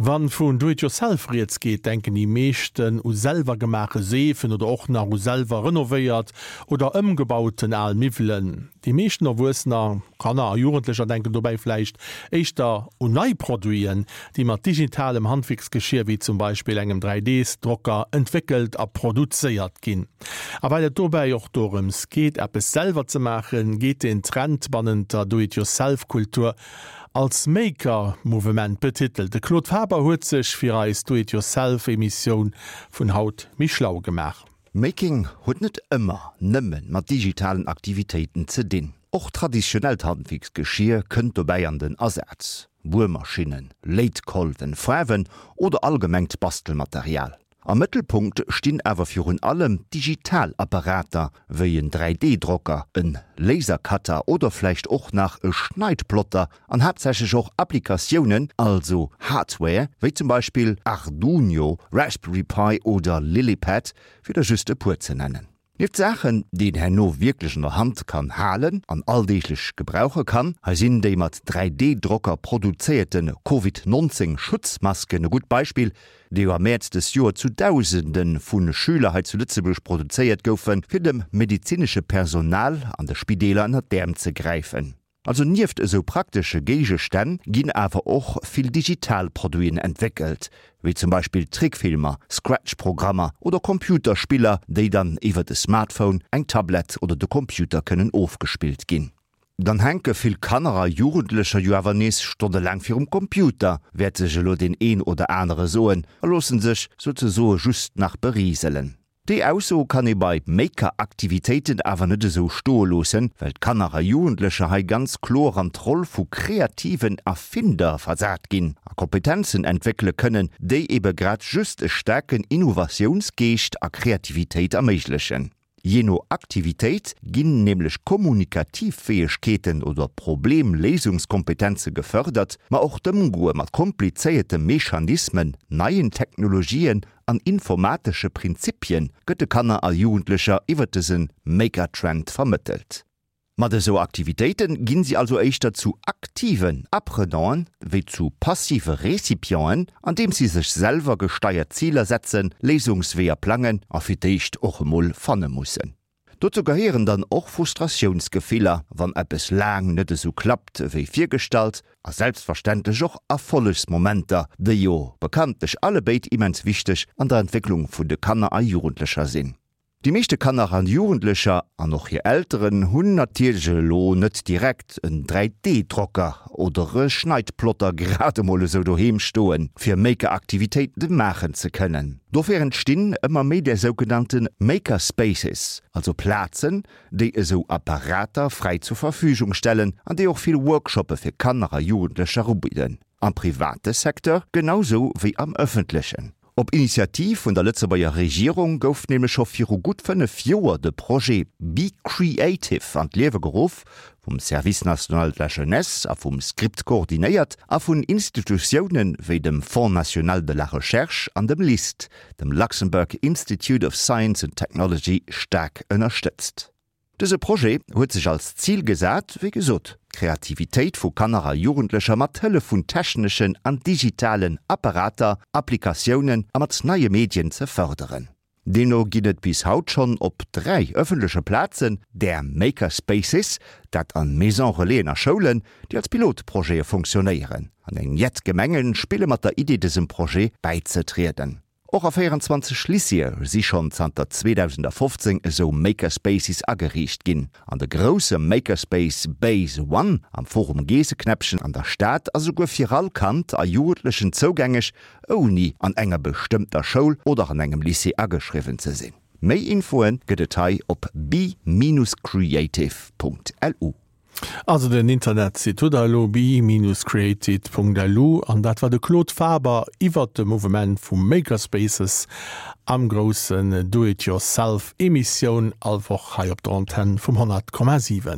Wann vun Do it yourself rieds geet, denken déi meeschten u selwer gemaache Seefen oder och nach u selwer renovéiert oder ëmgebauten al Miwwelen. Déi meeschten Erwuessener, Kanner a Jugendlecher denken dobäi vläicht éischter un nei Produiten, déi mat digitalem Handwierksgeschier wéi zum Beispill engem 3D-Drocker entwéckelt a produzéiert ginn. A well et dobäi och dorëms geet, eppes selwer ze maachen, geet den Trend bannent der Do-it-yourself-Kultur Als Maker Mouvement betitelt. De Claude Faber huet sech fir eis Do It Yourself Emissioun vun haut méi schlau gemaach. Making huet net ëmmer nëmme mat digitalen Aktivitéiten ze dinn. Och traditionellt Handwierksgeschier kënnt dobäi an den Asaz, Buermaschinnen, Léitkolwen, Faarwen oder allgemengt Bastelmaterial. Am Mëttelpunkt stinn awer virun allem digital Apparater wéi en 3D-Drocker, en Lasercutter oder vläicht och nach e Schneidplotter an haaptsächlech och Applikatiounen, also Hardware, wéi zum Beispill Arduino, Raspberry Pi oder Lilypad, fir der just e puer ze nennen. Nieft Saachen, déi een herno wierklech an der Hand kann halen an alldeeglech gebrauche kann, hei sinn déi mat 3D-Drocker produzéierte Covid 19 Schutzmasken e gutt Beispill, déi jo am Mäerz dës Joer zu Dausende vu Schüler hei zu Lëtzebuerg produzéiert goufen, fir dem medezinesche Personal an de Spideeler ënnert d'Äerm ze gräifen. Also nieft esou praktesche Géigestänn ginn awer och vill digital Produiten entwéckelt, wéi zum Beispill Trickfilmer, Scratch-Programmer oder Computerspiller, déi dann iwwert e Smartphone, eng Tablett oder de Computer kënnen ofgespillt ginn. Dann hänke vill Kanner a Jugendlecher jo awer nees stonnelaang virum Computer, wäert sech elo deen een oder anere soen, a loosse sech souzesoe just nach beriselen. Déi Ausso kann ee bei Maker-Aktivitéiten awer net esou stoe loossen, well d'Kanner a Jugendlecher hei ganz kloer an d'Roll vu kreativen Erfinder versat ginn a Kompetenzen entwéckele kënnen, déi ebe grad just e staarken Innovatiounsgeescht a Kreativitéit erméiglechen. Jee no Aktivitéit ginn nämlech kommunikativ Fäegkeeten oder Problemléisungskompetenze gefërdert, ma och d'Ëmgoe mat komplizéierte Mechanismen, neien Technologien an informatesche Prinzipie gëtt de Kanner a Jugendlecher iwwer dëse Maker-Trend vermëttelt. Mat esou Aktivitéite ginn si also éischter zu aktiven Apprenanten wéi zu passive Recipienten, andeems si sech selwer gesteiert Ziler setzen, Léisungsweeër plangen a fir d'éischt och emol fanne mussen. Dozou gehéieren dann och Frustratiounsgefiller, wann eppes laang net esou klappt wéi virgestallt, a selbstverständlech och Erfollegsmomenter, déi jo bekanntlech allebéid immens wichteg an der Entwécklung vun de Kanner a Jugendlecher sinn. Déi meeschte Kanner an Jugendlecher, an och hir Elteren, hunn natierlech elo net direkt en 3D-Drocker oder e Schneidplotter grad emol esou doheem stoen, fir Maker-Aktivitéite maachen ze kënnen. Dofir entstinn ëmmer méi där sougenannte Maker Spaces, also Plazen, déi esou Apparater fräi zur Verfügung stellen an déi och vill Workshoppe fir Kanner a Jugendlecher ubidden, am private Secteur genau sou wéi am ëffentlechen. Op Initiativ vun der Lëtzebuerger Regierung gouf nämlech scho viru gutt 5 Joer de Projet Be Creative an d'Liewe geruff, vum Service national de la jeunesse a vum Script koordinéiert a vun Institutioune wéi dem Fonds national de la recherche an dem LIST, dem Luxembourg Institute of Science and Technology, staark ënnerstëtzt. Dëse Projet huet sech als Zil gesat, wéi gesot, d'Kreativitéit vu Kanner a Jugendlecher mat Hëllef vun techneschen an digitalen Apparater, Applikatiounen a mat neie Medien ze fërderen. Deemno ginn et bis haut schonn op 3 ëffentleche Plazen där Maker Spaces, dat an Maison Relaisen a Schoulen, déi als Pilotprojete funktionéieren. An eng jett Gemenge spille mat der Idee dësem Projet bäizetrieden. Och a 24 Lycéeë si schonn zanter 2015 esou Makerspaces ageriicht ginn. An de grousse Makerspace Base One am Forum Geesseknäppchen an der Stad ass esouguer fir all Kand a Jugendlechen zougängeg, ouni an enger bestëmmter Schoul oder an engem Lycée ageschriwwen ze sinn. Méi Infoe gëtt et hei op be-creative.lu. Also den Internetsite hutt der elo, be-created.lu an dat war de Claude Faber iwwert de Mouvement vu Makerspaces am groussen Do-it-yourself Emissioun all Woch hei op der Antenn vum 100,7.